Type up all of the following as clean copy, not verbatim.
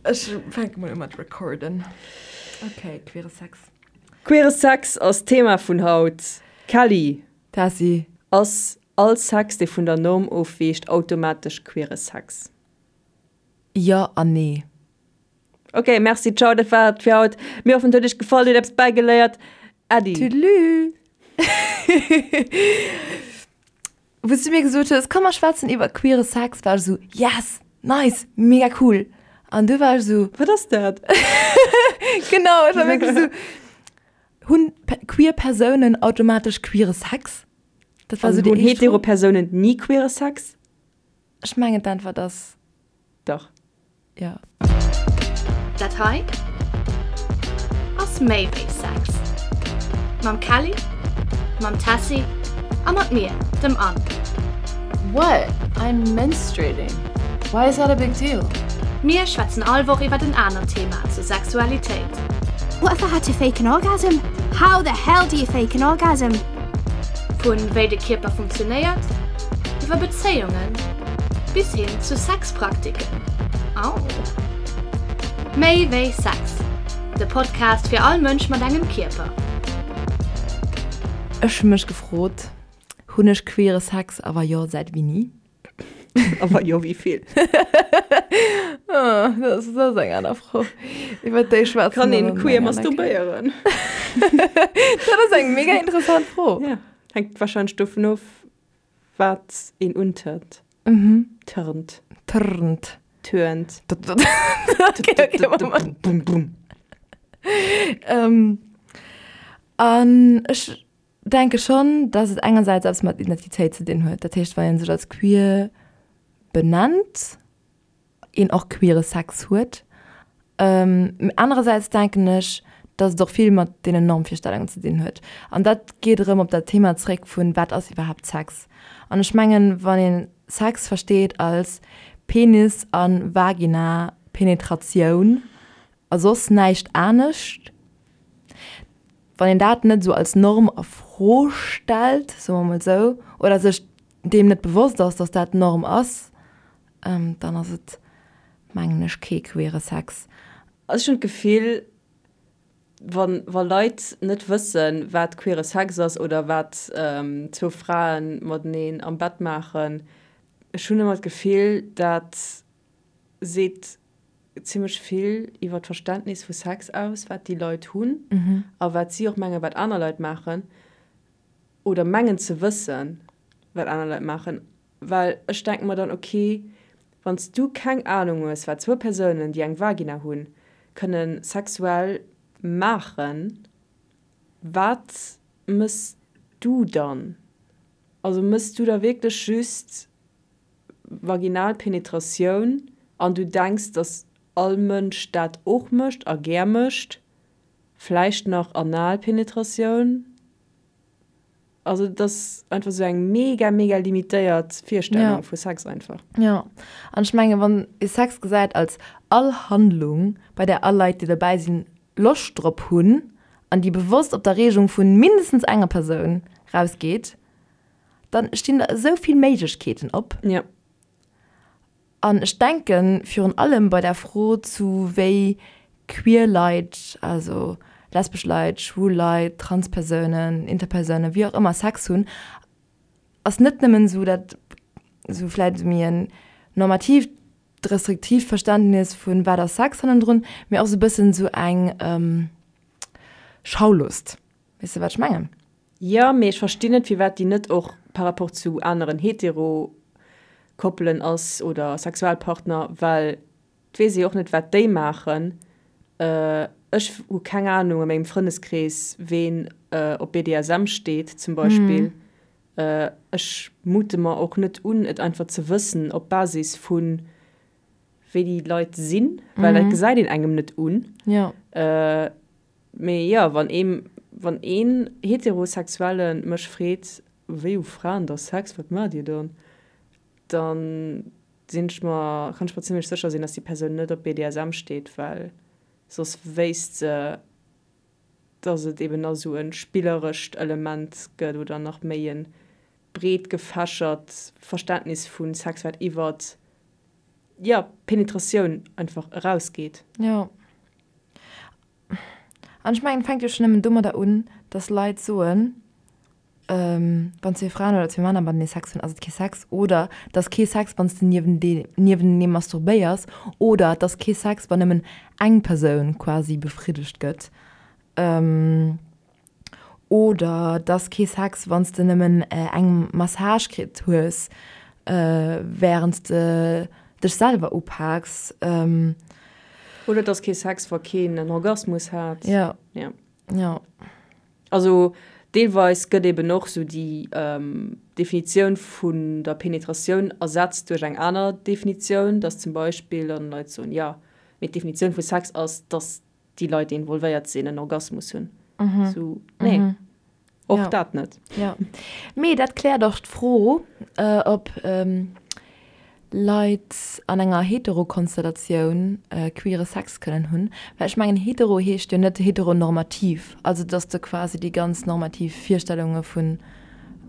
Ech fänke mol u mat recorden. Ok, queere Sex. Queere Sex ass d'Thema vun haut. Kelly. Tessy. Ass all Sex, dee vun der Norm ofweecht, automatesch queere Sex? Jo an nee. Ok, merci, ciao, dat war et fir haut. Mir hoffen, et huet iech gefall, dir hutt eppes bäigeléiert. Äddi. Tüdelü. Wou s du mir gesot hues, komm mer schwätzen iwwer queere Sex, war ech esou, yes, nice, mega cool. An du war ech esou. Wat ass dat? Genau, ech war wierklech esou, hunn queer Persounen automatesch queere Sex? Dat war esou déi éischt Fro. Hunn hetero Persounen ni queere Sex? Ech mengen d'Äntwert ass. Dach. Jo. Dat hei ass méi wéi Sex. Mam Kelly, mam Tessy a mat mir, dem Anne. What? I'm menstruating. Why is that a big deal? Mir schwätzen all Woch iwwert en anert Thema zur Sexualitéit. What if I had to fake an orgasm? How the hell do you fake an orgasm? Vun wéi de Kierper funktionéiert, iwwer Bezéiungen bis hin zu Sexpraktiken. Au! Méi wéi Sex, de Podcast fir all Mënsch mat engem Kierper. Ech hu mech gefrot, hunn ech queere Sex a wa jo, säit wéini? A wa jo, wéi vill? Dat ass eng aner Fro. Iwwer déi schwätze Kann een queer masturbéieren? Dat ass eng mega interessant Fro. Ja, hänkt warscheinlech dovun of, wat een untörnt. Törnt. Trnt. Türnt. Okay, okay, Moment. Bum, bum. An ech denke schonn, dass et engersäits eppes mat Identitéit ze dinn huet. Dat heescht, wann ee sech als queer benennt, een och queere Sex huet. Anerersäits denken ech, dass et och vill mat deenen Normvirstellungen ze dinn huet. An dat geet erëm op dat Thema zréck vun, wat ass iwwerhaapt Sex? An ech mengen, wann ee Sex versteet als Penis a Vagina Penetratioun a soss näischt anescht, wann een dat net esou als Norm a Fro stellt, soe mer mol esou, oder sech deem net bewosst ass, dass dat d'Norm ass, dann ass et, mengen ech, kee queere Sex. Also ech hunn d'Gefill, wa wa Leit net wëssen, wat queere Sex ass oder wat zwou Frae mateneen am Bett maachen, ech hunn ëmmer d'Gefill, dat seet zimmlech vill iwwer d'Verständnis vu Sex aus, wat déi Leit hunn a wat si och mengen, wat aner Leit maachen oder mengen ze wëssen, wat aner Leit maachen. Well ech denke mer dann, ok, wann s du keng Anung hues, wat zwou Persounen, déi eng Vagina hunn, kënne sexuell maachen, wat mëss du dann? Also mëss du da wierklech just vaginal Penetratioun an du denks, dass all Mënsch dat och mécht a gär mécht, vläicht nach anal Penetratioun? Also et ass einfach sou eng mega mega limitéiert Virstellung vu Sex einfach. Jo, an ech mengen, wann ee Sex gesäit als all Handlung, bei där all Leit, déi dobäi sinn, Loscht drop hunn an déi bewosst op d'Erreegung vu mindestens enger Persoun rausgeet, dann stinn der esou vill Méiglechkeeten op. Jo. An ech denken, virun allem bei der Fro zu wéi queer Leit, also lesbesch Leit, schwul Leit, Transpersounen, Interpersounen, wéi och ëmmer, Sex hunn, ass net nëmmen esou dat esou vläicht esou méi en normatiivt, restriktiivt Verständnis vun wat ass Sex hannendrun, mee och esou e bëssen esou eng Schaulust. Weess de wat ech mengen? Jo, mee ech verstinn net firwat déi net och par rapport zu aneren hetero Koppelen ass oder Sexualpartner, well et weess ee jo och net wat déi maachen. Ech hu keng Ahnung a mengem Frëndeskrees ween op BDSM steet zum Beispill. Ech mute mer och net un et einfach ze wëssen op Basis vu wéi déi Leit sinn, well dat gesäit een engem net un. Mee jo, wann ee, wann een Heterosexuelle mech freet, wéi hu Fraen da Sex, wat maacht dir dann? Dann sinn ech mer, kann ech mer zimlech sécher sinn, dass déi Persoun net op BDSM steet, well soss wéisst se, dass et eben nach esou e spillerescht Element gëtt oder nach méi e breet gefächert Verständnis vu Sex, wat iwwert. Jo, Penetratioun einfach erausgeet. Jo. An ech mengen, et fänkt jo schonn nëmmen domadder un, dass Leit soen, wann zwee Fraen oder zwee Männer matenee Sex hunn, ass et kee Sex. Oder et ass kee Sex, wann s de niewentenee masturbéiers. Oder et ass kee Sex, wann nëmmen eng Persoun quasi befriddegt gëtt. Oder et ass kee Sex, wann s de nëmmen eng Massage kritt hues, wärend s de dech selwer upaaks. Oder et ass kee Sex, wa keen en Orgasmus hat. Jo. Jo. Also deelweis gëtt eben och sou déi Definitioun vun der Penetratioun ersetzt duerch eng aner Definitioun, dass zum Beispill dann Leit soen, jo, mee d'Definitioun vu Sex ass, dass déi Leit, déi involvéiert sinn, en Orgasmus hunn. Sou, nee, och dat net. Jo, mee dat kläert och d'Fro, ob Leit an enger Heterokonstellatioun queere Sex kënnen hunn. Well ech mengen, hetero heescht jo net heteronormativ, also dass de quasi déi ganz normativ Virstellunge vu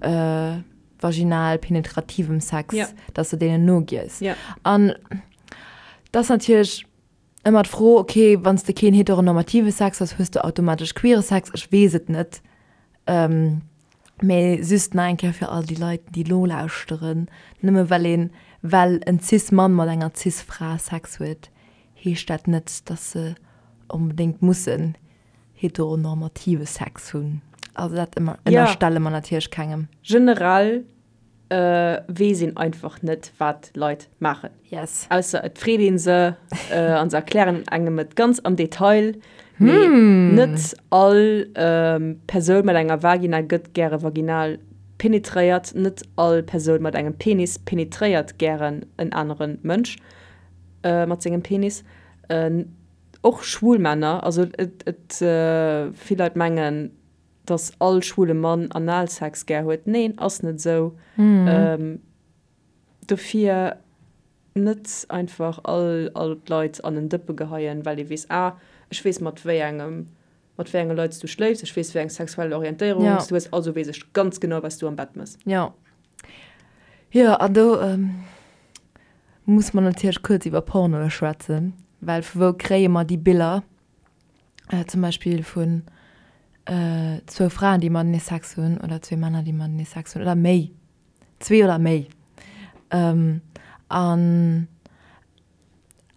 vaginal penetrativem Sex, dass de deenen nogiess. An dat ass natierlech Ëmmer d'Fro, ok, wann s de keen heteronormative Sex hues, hues de automatesch queere Sex? Ech weess et net. Mee just nach eng Kéier fir all déi Leit, déi elo lauschteren, Nëmme well een, well en Cis-Mann mat enger Cis-Fra Sex huet, heescht dat net, dass se onbedéngt mussen heteronormative Sex hunn. Also dat ënnerstelle mer natierlech kengem. Generell weess een einfach net wat Leit maachen. Yes. Ausser et freet een se an se erklären engem et ganz am Detail. Mee net all Persoun mat enger Vagina gëtt gäre vaginal penetréiert, net all Persoun mat engem Penis penetréiert gären en anere Mënsch mat sengem Penis. Och schwul Männer, also et et vill Leit mengen, dass all schwule Mann Analsex gär huet. Neen, ass net esou. Dofir net einfach all all d'Leit an en Dëppe geheien, well ee weess, ah, ech weess mat wéi engem, mat wéi enge Leit s du schléifs, ech weess wéi eng sexuell Orientéierung s du hues, also weess ech ganz genau wat s du am Bett mëss. Jo. Jo, an do muss mer natierlech kuerz iwwer Pornoe schwätzen, well vu wou kréie mer déi Biller? Zum Beispill vun zwou Fraen, déi matenee Sex hunn, oder zwee Männer, déi matenee Sex hunn, oder méi, zwee oder méi. An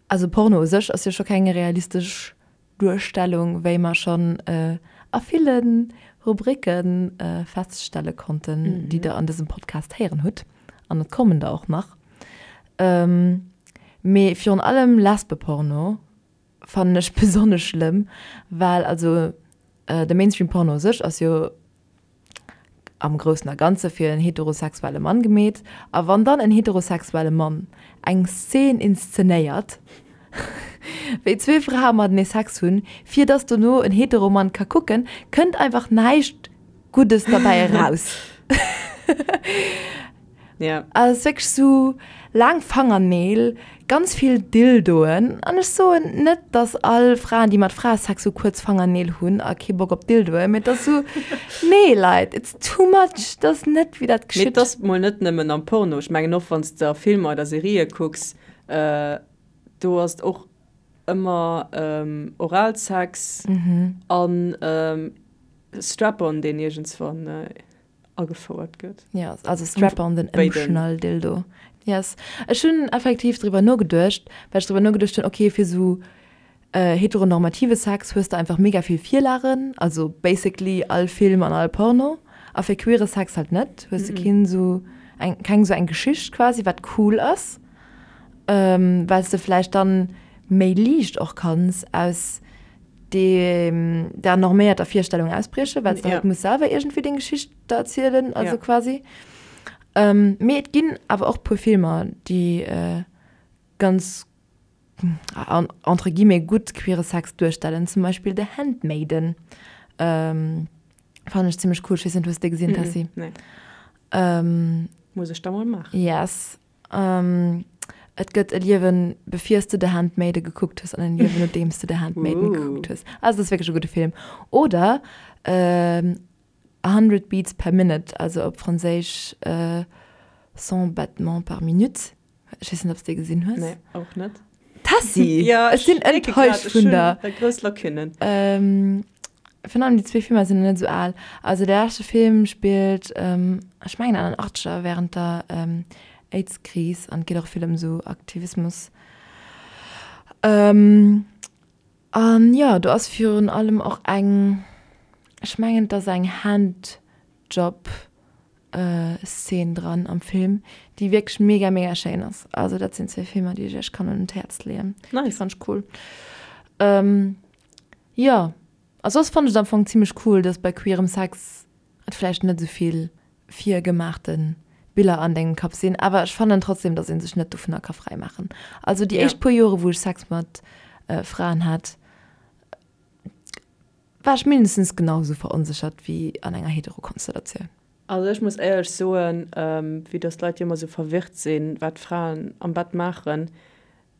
also Porno u sech ass jo scho keng realistesch Duerstellung, wéi mer schonn a ville Rubricke feststelle konnten, déi Der an dësem Podcast héieren hutt. An et kommen der och nach. Mee virun allem Lesbeporno fannen ech besonnesch schlëmm, well also de Mainstream Porno u sech ass jo am groussen a ganze fir en heterosexuelle Mann gemeet, a wann dann en heterosexuelle Mann eng Szen inszenéiert, wéi zwee Frae matenee Sex hunn, fir dass dono en hetero Mann ka kucken, kënnt einfach näischt Guddes derbäi eraus. Ja. Also es ist wierklech sou laang Fangerneel, ganz vill Dildoen. An ech soen net, dass all Fraen, déi mat Frae Sex hu, kuerz Fangerneel hunn a kee Bock op Dildoen, mee et ass sou, nee Leit, it's too much, dat ass net wéi dat Mee geschitt. et ass mol net nëmmen am Porno. Ech mengen och wann s de a Filmer oder Serië kucks, do ass et och ëmmer Oralsex an Strap-on, deen iergendswann agefouert gëtt. Ja, also Strap-on, den Ëmschnall-Dildo. Yes. Ech hunn effektiv driwwer nogeduecht, well ech driwwer nogeduecht hunn, okay, fir esou heteronormative Sex hues de einfach mega vill Virlagen, also basically all Film an all Porno, a fir queere Sex halt net, hues de keen esou eng, keng esou eng Geschicht quasi, wat cool ass, well s de vläicht dann méi liicht och kanns aus deem der norméierter Virstellung ausbriechen, well s de halt muss selwer iergendwéi deng Geschicht da erzielen, also quasi. Mee et ginn awer och puer Filmer, déi ganz entre guillemets gutt queere Sex duerstellen, zum Beispill The Handmaiden fannen ech zimmlech cool. Ech weess net, hues de dee gesinn, Tessy? Nee. Muss ech da mol maachen. Yes. Et gëtt e Liewen bevir s de The Handmaiden gekuckt hues an en Liewen nodeem s de The Handmaiden gekuckt hues. Also dat ass wierklech e gudde Film. Oder A Hundred Beats per Minute, also op Franséisch Cent battements par minute. Ech weess net, ob s de dee gesinn hues. Nee, och net. Tessy! Ja, ech sinn enttäuscht vun der. Ech hunn grouss Lacunnen. Virun allem déi zwee Filmer sinn net esou al. Also de leschte Film spillt, ech mengen an den Achtzeger während der Aids-Kris an et geet och vill ëm esou Aktivismus. An jo, do ass virun allem och eng, ech mengen et ass eng Handjob Szene dran am Film, déi wierklech mega mega schéin ass. Also dat sinn zwee Filmer, déi ech iech kann un d'Häerz leeën. Nice. Déi fannt ech cool. Jo, a soss fannt ech et am Fong zimmlech cool, dass bei queerem Sex et vläicht net esou vill virgemaachte Biller an dengem Kapp sinn, awer ech fannen trotzdem, dass ee sech net dovunner ka fräi maachen. Also déi éischt puer Jore wou ech Sex mat Fraen hat, war ech mindestens genau esou veronséchert wéi an enger Hetero-Konstellatioun. Also ech muss éierlech soen, vue dass d'Leit jo ëmmer esou verwirrt sinn, wat Fraen am Bett maachen,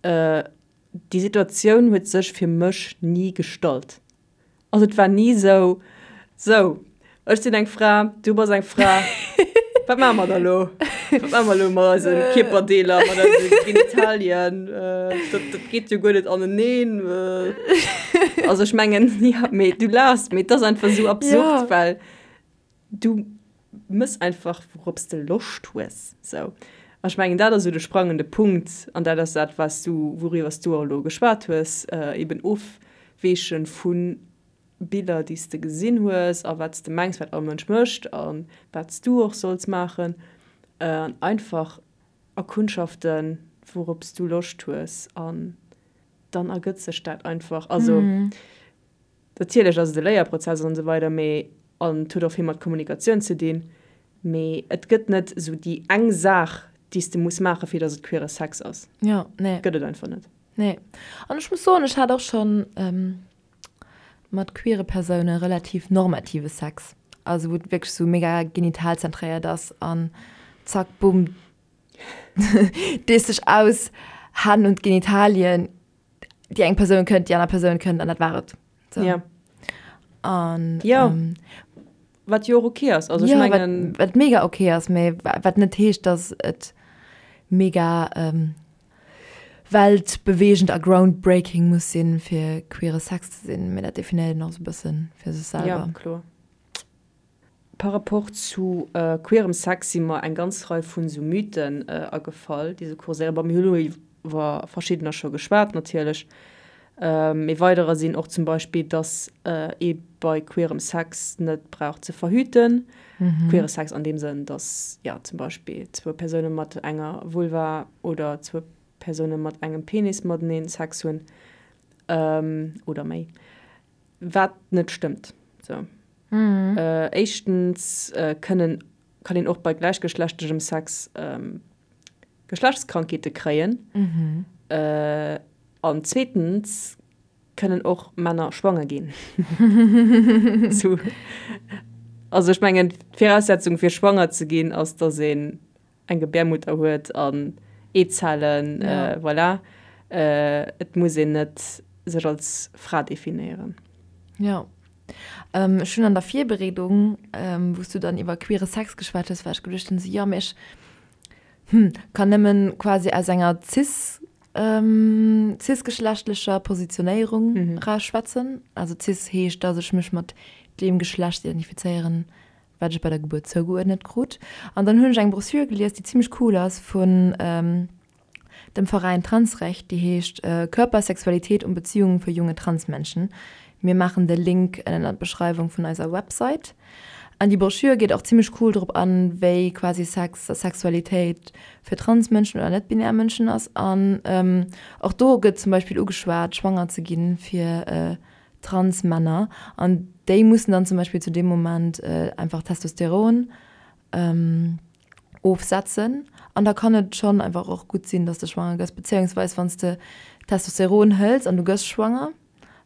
déi Situatioun huet sech fir mech ni gestallt. Also et war ni esou, sou, ech sinn eng Fra, du bass eng Fra, wat maache mer da lo? Wat maache mer lo mat eise Kierperdeeler, mat eise Genitalien? Dat, dat geet jo guer net aneneen. Also ech mengen, jo, mee du laachs, mee et ass einfach esou absurd, well Du mëss einfach wourops de Loscht hues. Sou. An ech mengen dat ass esou de sprangende Punkt an dat ass dat wat s du, wouriwwer s du och elo geschwat hues, eben ofweeche vu Biller déi s de gesinn hues a wat s de mengs wat all Mënsch mécht a wat s du och solls maachen an einfach erkundschaften wourops du Loscht hues an dann ergëtt sech dat einfach. Also. Natierlech ass et e Léierprozess an esou weider, mee an et huet och vill mat Kommunikatioun ze dinn, mee et gëtt net esou déi eng Saach, déi s de muss maachen, fir datt et queere Sex ass. Jo, nee. Gëtt et einfach net. Nee. An ech muss soen, ech hat och schonn mat queere Persoune relativ normative Sex, also wou et wierklech esou mega genitalzentréiert ass an zack, bumm, dees dech aus, Hänn un d'Genitalien, déi eng Persoun kënnt, déi aner Persoun kënnt an dat war et. So. Ja. An, ja. Ähm, wat jo och okay ass. Also, ja, ech mengen, wat, wat mega okay ass, mee wat net heescht, dass et mega ähm, weltbewegend a groundbreaking muss sinn, fir queere Sex ze sinn. Mee dat definéiert een och sou e bëssen fir sech selwer. Ja, kloer. Par rapport zu queerem Sex si mer eng ganz Rei vun esou Mythen agefall, déi esou kurséieren. Bon, mir hu lo iwwer verschiddener scho geschwat natierlech. Mee weiderer sinn och zum Beispill, dass ee bei queerem Sex net brauch ze verhüten. Queere Sex an deem Sënn, dass, jo, zum Beispill zwou Persoune mat enger Vulva oder zwou Persoune mat engem Penis mateneen Sex hunn oder méi. Wat net stëmmt. Sou. Éischtens kënnen, kann een och bei gläichgeschlechtlechem Sex Geschlechtskrankheete kréien. An zweetens kënnen och Männer schwanger ginn. Sou. Also ech mengen, d'Viraussetzung fir schwanger ze ginn ass, dass een eng Gebärmutter huet an Eezellen, voilà. Et muss een net sech als Fra definéieren. Jo. Ech hunn an der Virbereedung, wou s du dann iwwer queere Sex geschwat hues, war ech geduecht hunn, sou jo, mee ech, hm, kann nëmmen quasi aus enger cis, cisgeschlechtlecher Positionéierung eraus schwätzen. Also cis heescht, dass ech mech mat deem Geschlecht identifizéieren, wat ech bei der Gebuert zougeuerdnet krut. An dann hunn ech eng Broschür gelies, déi zimmlech cool ass, vun dem Veräin Transrecht, déi heescht Körper, Sexualität und Beziehungen für junge Transmenschen. Mir maachen de Link ënnen an d'Beschreiwung vun eiser Website. An déi Broschür geet och zimmlech cool drop an, wéi quasi Sex a Sexualitéit fir Transmënschen oder net-binär Mënschen ass. An och do gëtt zum Beispill ugeschwat, schwanger ze ginn fir trans Männer an déi mussen dann zum Beispill zu deem Moment einfach Testosteron ofsetzen an da kann et schonn einfach och gutt sinn, dass de schwanger gëss, bezéiungsweis wann s de Testosteron hëls an du gëss schwanger,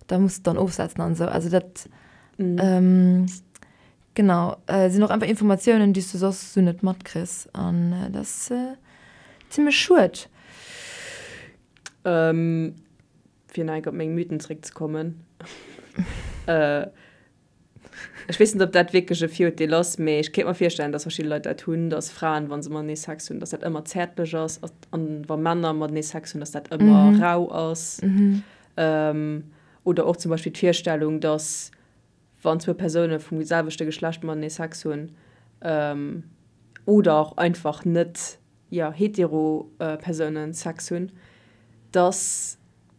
da muss de dann ofsetzen an esou. Also dat genau sinn och einfach Informatiounen, déi s du soss esou net matkriss an dat ass zimmlech schued. Fir nach eng Kéier op meng Mythen zréckzekommen. Ech weess net, ob dat wierklech e Virurteel ass, mee ech kéint mer virstellen, dass verschidde Leit dat hunn, dass Fraen, wa se matenee Sex hunn, dass dat ëmmer zäertlech ass an wa Männer matenee Sex hunn, dass dat ëmmer rau ass. Oder och zum Beispill d'Virstellung, dass wann zwou Persoune vum selwechte Geschlecht matenee Sex hunn oder och einfach net, jo, hetero Persounen Sex hunn, dass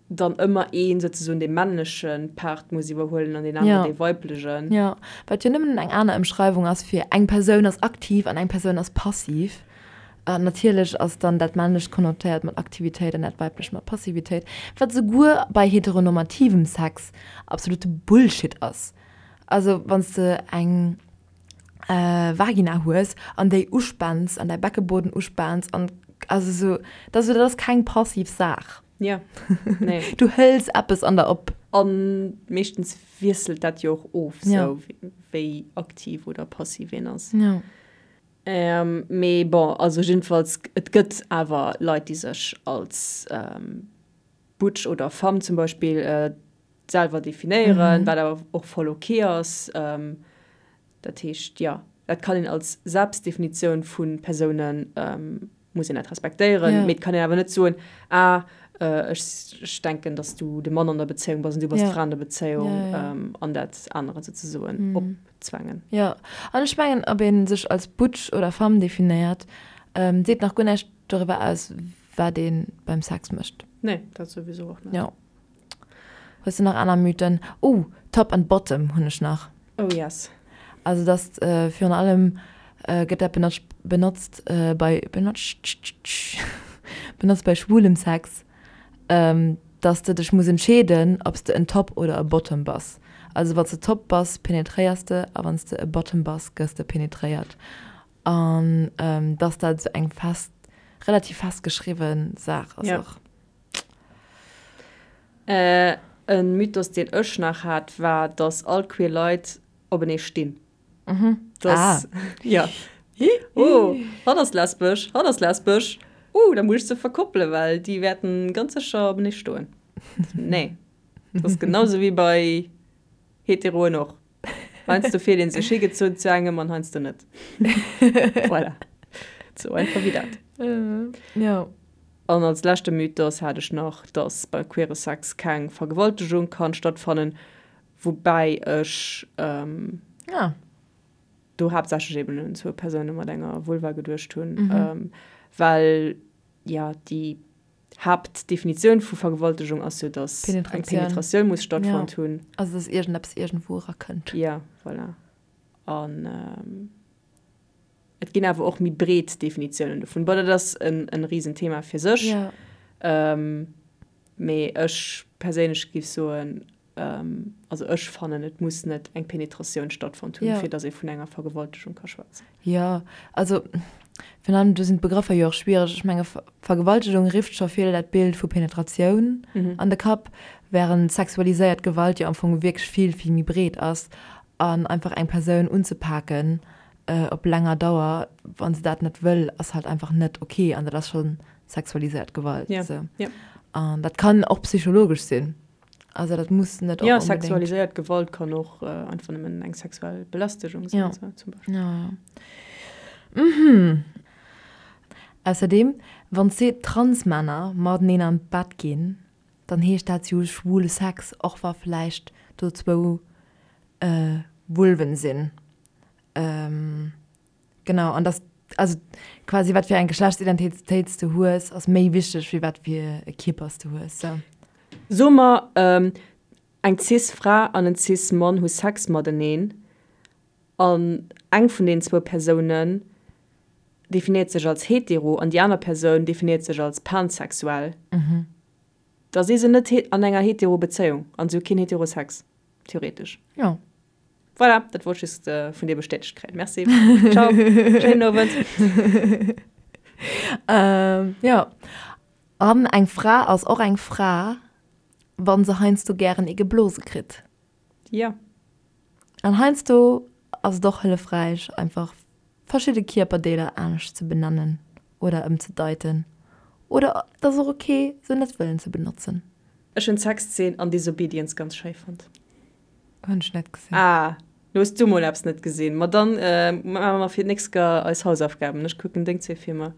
dann ëmmer een souzesoen dee männleche Part muss iwwerhuelen an deen aneren dee weiblegen. Jo, wat jo nëmmen eng aner Ëmschreiwung ass fir eng Persoun ass aktiv an eng Persoun ass passiv. An natierlech ass dann dat männlecht konnotéiert mat Aktivitéit an dat weiblecht mat Passivitéit, wat souguer bei heteronormativem Sex absolute Bullshit ass. Also wann s de eng Vagina hues an déi uspaans an däi Beckebueden uspaans an also sou, dat ass dat ass keng passiv Saach. Ja, nee. Du hëls eppes an der op. A meeschtens wiesselt dat jo och of, sou wéi aktiv oder passiv een ass. Ja. Mee bon, also jiddefalls, et gëtt awer Leit, déi sech als Butch oder Femme zum Beispill selwer definéieren, wat awer och voll ok ass. Dat heescht, jo, dat kann een als Selbstdefinitioun vu Persounen, muss een dat respektéieren. Mee et kann een awer net soen, ah, ech denken, datt s du de Mann an der Bezéiung bass an du bass d'Fra an der Bezéiung an dat anere souzesoen opzwängen. Jo, an ech mengen, ob ee sech als Butch oder Femme definéiert, seet nach guer näischt doriwwer aus, wat ee beim Sex mécht. Nee, dat souwisou och net. Jo. Hues de nach aner Mythen? Oh, Top and Bottom hunn ech nach. Oh yes. Also dass virun allem gëtt dat benotzt benotzt bei benotzt benotzt bei schwulem Sex, dass de dech muss entscheeden, ob s de en Top oder e Bottom bass. Also wann s de Top bass, penetréiers de a wann s de e Bottom bass, gëss de penetréiert. An dass dat esou eng fest relativ festgeschriwwe Saach ass och. E Mythos, deen ech nach hat, war, dass all queer Leit openee stinn. Dass, jo. Oh, hatt ass lesbesch, hatt ass lesbesch, oh, da muss ech se verkoppelen, well déi wäerten ganz sécher openee stoen. Nee, dat ass genau sou wéi bei Heteroen och. Heiansdo fillt een sech higezunn zu engem an heiansdo net. Voilà. Sou einfach wéi dat. Jo. An als leschte Mythos hat ech nach, dass bei queere Sex keng Vergewaltegung kann stattfannen, woubäi ech do haaptsächlech eben un zwou Persoune mat enger Vulva geduecht hunn, well jo déi Haaptdefinitioun vu Vergewaltegung ass jo, dass eng Penetratioun muss stattfonnt hunn. Also dass iergendeppes iergendwou erakënnt. Jo, voilà. An Et ginn awer och méi breet Definitiounen dovun. Bon, dat ass en Risenthema fir sech. Mee ech perséinlech géif soen, also ech fannen, et muss net eng Penetratioun stattfonnt hunn, fir datt ee vun enger Vergewaltegung ka schwätzen. Jo, also virun allem do sinn d'Begrëffer jo och schwiereg. Ech menge Vergewaltegung rifft scho vill dat Bild vu Penetratioun an de Kapp, wärend sexualiséiert Gewalt jo am Fong wierklech vill, vill méi breet ass an einfach eng Persoun unzepaken op länger Dauer, wann se dat net wëll, ass halt einfach net ok an dat ass scho sexualiséiert Gewalt. Ja, ja. An dat kann och psychologesch sinn. Also dat muss net och. Ja, sexualiséiert Gewalt kann och einfach nëmmen eng sexuell Belästegung sinn, ja. zum Beispill. Ja, ja. Mhm. Ausserdeem, wann zwee Transmänner mateneen an d'Bett ginn, dann heescht dat, si hu schwule Sex, och wa vläicht do zwou Vulven sinn. Genau, an dass, also quasi wat fir eng Geschlechtsidentitéit s de hues, ass méi wichteg wéi wat fir e Kierper s de hues. Sou. Soe mer, eng cis Fra an en cis Mann hu Sex mateneen an eng vun deenen zwou Persounen definéiert sech als hetero an déi aner Persoun definéiert sech als pansexuell, da si se net an enger hetero Bezéiung an se hu keen hetero Sex, theoretesch. Jo. Voilà, dat wollt ech just vun dir bestätegt kréien. Merci. Ciao. Schéinen Owend. Jo. An eng Fra ass och eng Fra, wa se heiansdo gären ee geblose kritt. Jo. An heiansdo ass et och hëllefräich, einfach verschidde Kierperdeeler anescht ze benennen oder ëmzedeiten. Oder et ass och ok, se net wëllen ze benotzen. Ech hunn d'Sexzeen an Disobedience ganz schéi fonnt. Hunn ech net gesinn. Ah. Lo hues du mol eppes net gesinn. Ma dann maache mer fir d'nächst Kéier eis Hausaufgaben. Ech kucken deng zwee Filmer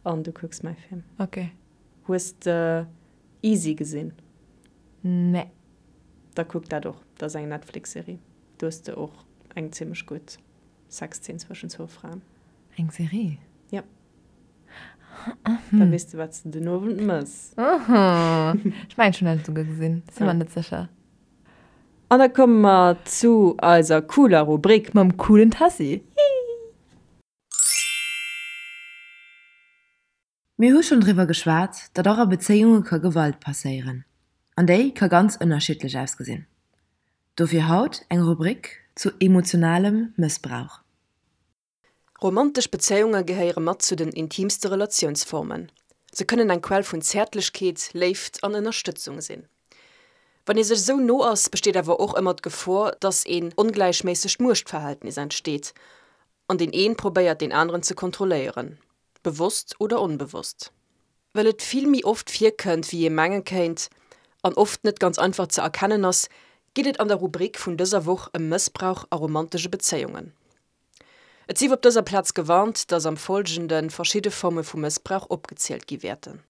an du kucks mäi Film. Ok. Hues de Easy gesinn? Nee. Da kuck dat och. Dat ass eng Netflix-Serie. Do hues de och eng zimmlech gutt Sexzeen zwëschen zwou Fraen. Eng Serie? Ja. Da weess de, wat s de den Owend mëss. Ech mengen, ech hunn dat esouguer gesinn. Sinn mer net sécher. An da komme mer zu eiser cooler Rubrik. Mam coolen Tessy. Mir hu schonn driwwer geschwat, datt och a Bezéiunge ka Gewalt passéieren. An déi ka ganz ënnerschiddlech ausgesinn. Dofir haut eng Rubrik zu emotionalem Mëssbrauch. Romantesch Bezéiunge gehéiere mat zu den intiimste Relatiounsformen. Se kënnen eng Quell vun Zäertlechkeet, Léift an Ënnerstëtzung sinn. Wann ee sech esou no ass, besteet awer och ëmmer d'Gefor, datt een ongläichméissegt Muechtverhältnis entsteet an deen een probéiert deen aneren ze kontrolléieren, bewosst oder onbewosst. Well et vill méi oft virkënnt wéi ee menge kéint an oft net ganz einfach ze erkennen ass, geet et an der Rubrik vun dëser Woch ëm Mëssbrauch a romantesche Bezéiungen. Et sief op dëser Plaz gewarnt, dass am Folgende verschidde Forme vu Mëssbrauch opgezielt gi wäerten.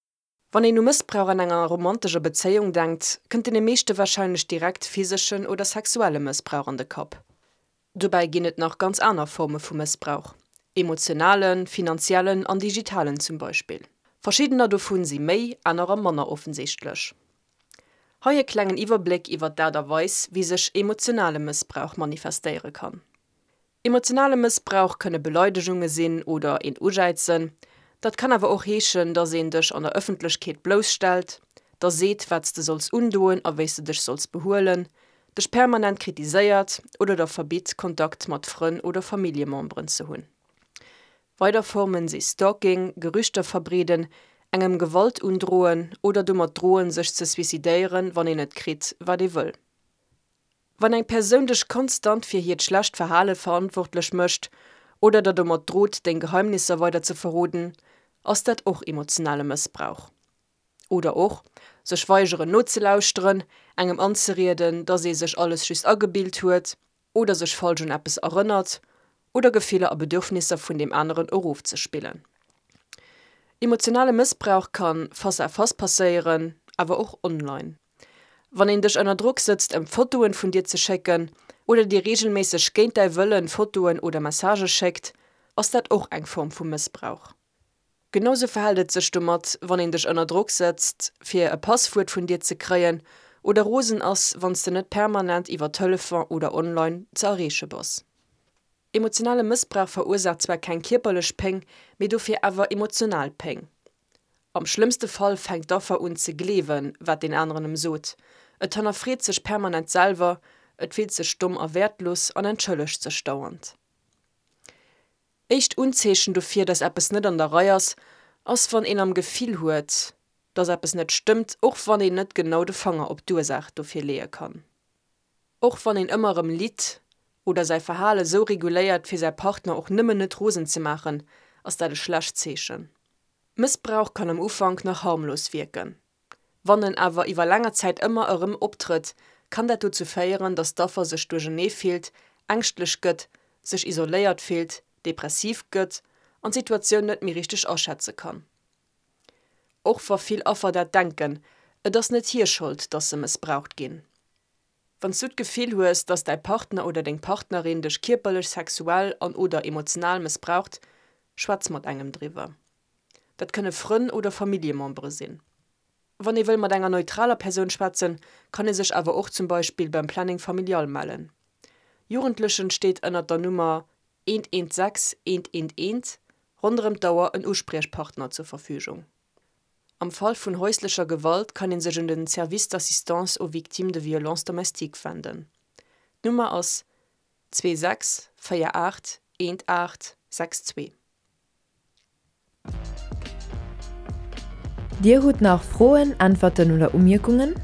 Wann een u Mëssbrauch an enger romantescher Bezéiung denkt, kënnt deene meeschte warscheinlech direkt physeschen oder sexuelle Mëssbrauch an de Kapp. Dobäi ginn et nach ganz aner Forme vu Mëssbrauch, emotionalen, finanziellen an digitalen zum Beispill. Verschiddener dovun si méi, anerer manner offensichtlech. Hei e klengen Iwwerbléck iwwer d'Aart a Weis, wéi sech emotionale Mëssbrauch manifestéiere kann. Emotionale Mëssbrauch kënne Beleidegunge sinn oder een Ujäizen. Dat kann awer och heeschen, dass een dech an der Ëffentlechkeet blousstellt, der seet, wat s de solls undoen a wéi s de dech solls behuelen, dech permanent kritiséiert oder der verbitt, Kontakt mat Frënn oder Familljememberen ze hunn. Weider Formen si Stalking, Gerüchter verbreeden, engem Gewalt undroen oder domat droen, sech ze suicidéieren, wann een net kritt, wat ee wëll. Wann eng Persoun dech konstant fir hiert schlecht Verhale verantwortlech mécht oder der domat drot, deng Geheimnisser weider ze verroden, ass dat och emotionale Mëssbrauch. Oder och, sech weigeren nozelauschteren, engem anzerieden, dass ee sech alles just agebilt huet oder sech falsch un eppes erënnert oder Gefiller a Bedürfnisser vun deem aneren erofzespillen. Emotionale Mëssbrauch kann face à face passéieren, awer och online. Wann een dech ënner Drock sëtzt ëm Fotoen vun dir ze schécken oder dir reegelméisseg géint däi Wëllen Fotoen oder Messagë schéckt, ass dat och eng Form vu Mëssbrauch. Genau sou verhält et sech domat, wann een dech ënner Drock sëtzt fir e Passwuert vun dir ze kréien oder rosen ass, wann s de net permanent iwwer Telefon oder online ze erreeche bass. Emotionale Mëssbrauch verursaacht zwar keng kierperlech Péng, mee dofir awer emotional Péng. Am schlëmmste Fall fänkt d'Affer un ze gleewen, wat deen aneren em sot, et hannerfreet sech permanent selwer, et fillt sech domm a wäertlos an entschëllegt sech dauernd. Éischt Unzeechen dofir, dass eppes net an der Rei ass, ass wann een am Gefill huet, dass eppes net stëmmt, och wann een net genau de Fanger op d'Ursaach dofir leeë kann. Och wann een ëmmer erëm litt oder säi Verhale sou reguléiert fir säi Partner och nëmmen net rosen ze maachen, ass dat e schlecht Zeechen. Mëssbrauch kann am Ufank nach harmlos wierken. Wann en awer iwwer länger Zäit ëmmer erëm optrëtt, kann dat dozou féieren, dass d'Affer sech duerchernee fillt, ängschtlech gëtt, sech isoléiert fillt, depressiv gëtt an d'Situatioun net méi richteg aschätze kann. Och wa vill Affer dat denken, et ass net hir Schold, dass se mëssbraucht ginn. Wann s du d'Gefill hues, dass däi Partner oder deng Partnerin dech kierperlech, sexuell an oder emotional mëssbraucht, schwätz mat engem driwwer. Dat kënne Frënn oder Familljemembere sinn. Wann ee wëll mat enger neutraler Persoun schwätzen, kann ee sech awer och zum Beispill beim Planning Familial mellen. Jugendlechen steet ënnert der Nummer 116 111 ronderëm d'Auer en Uspriechpartner zur Verfügung. Am Fall vun häuslecher Gewalt kann ee sech un den Service d'assistance aux victimes de violences domestiques wenden. D'Nummer ass 26 48 18 62. Dir hutt nach Froen, Äntwerten oder Umierkungen?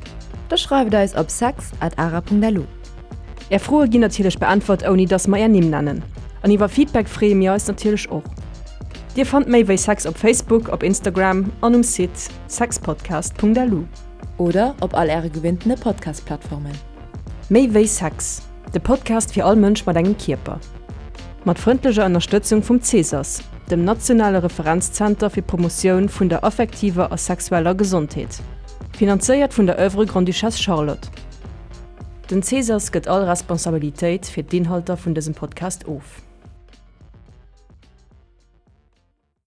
Da schreift eis op sex at ara.lu. Är Froe ginn natierlech beäntwert ouni dass mer är Nimm nennen. An iwwer Feedback freeë mir eis natierlech och. Dir fannt méi wéi Sex op Facebook, op Instagram an um Site sexpodcast.lu. Oder op all äre gewinntene Podcast-Plattformen. Méi wéi Sex. De Podcast fir all Mënsch mat engem Kierper. Mat frëndlecher Ënnerstëtzung vum Cesas, dem nationale Referenzzenter fir d'Promotioun vun der affektiver a sexueller Gesondheet. Finanzéiert vun der Oeuvre Grande-Duchesse Charlotte. Den Cesas gëtt all Responsabilitéit fir d'Inhalter vun dësem Podcast of.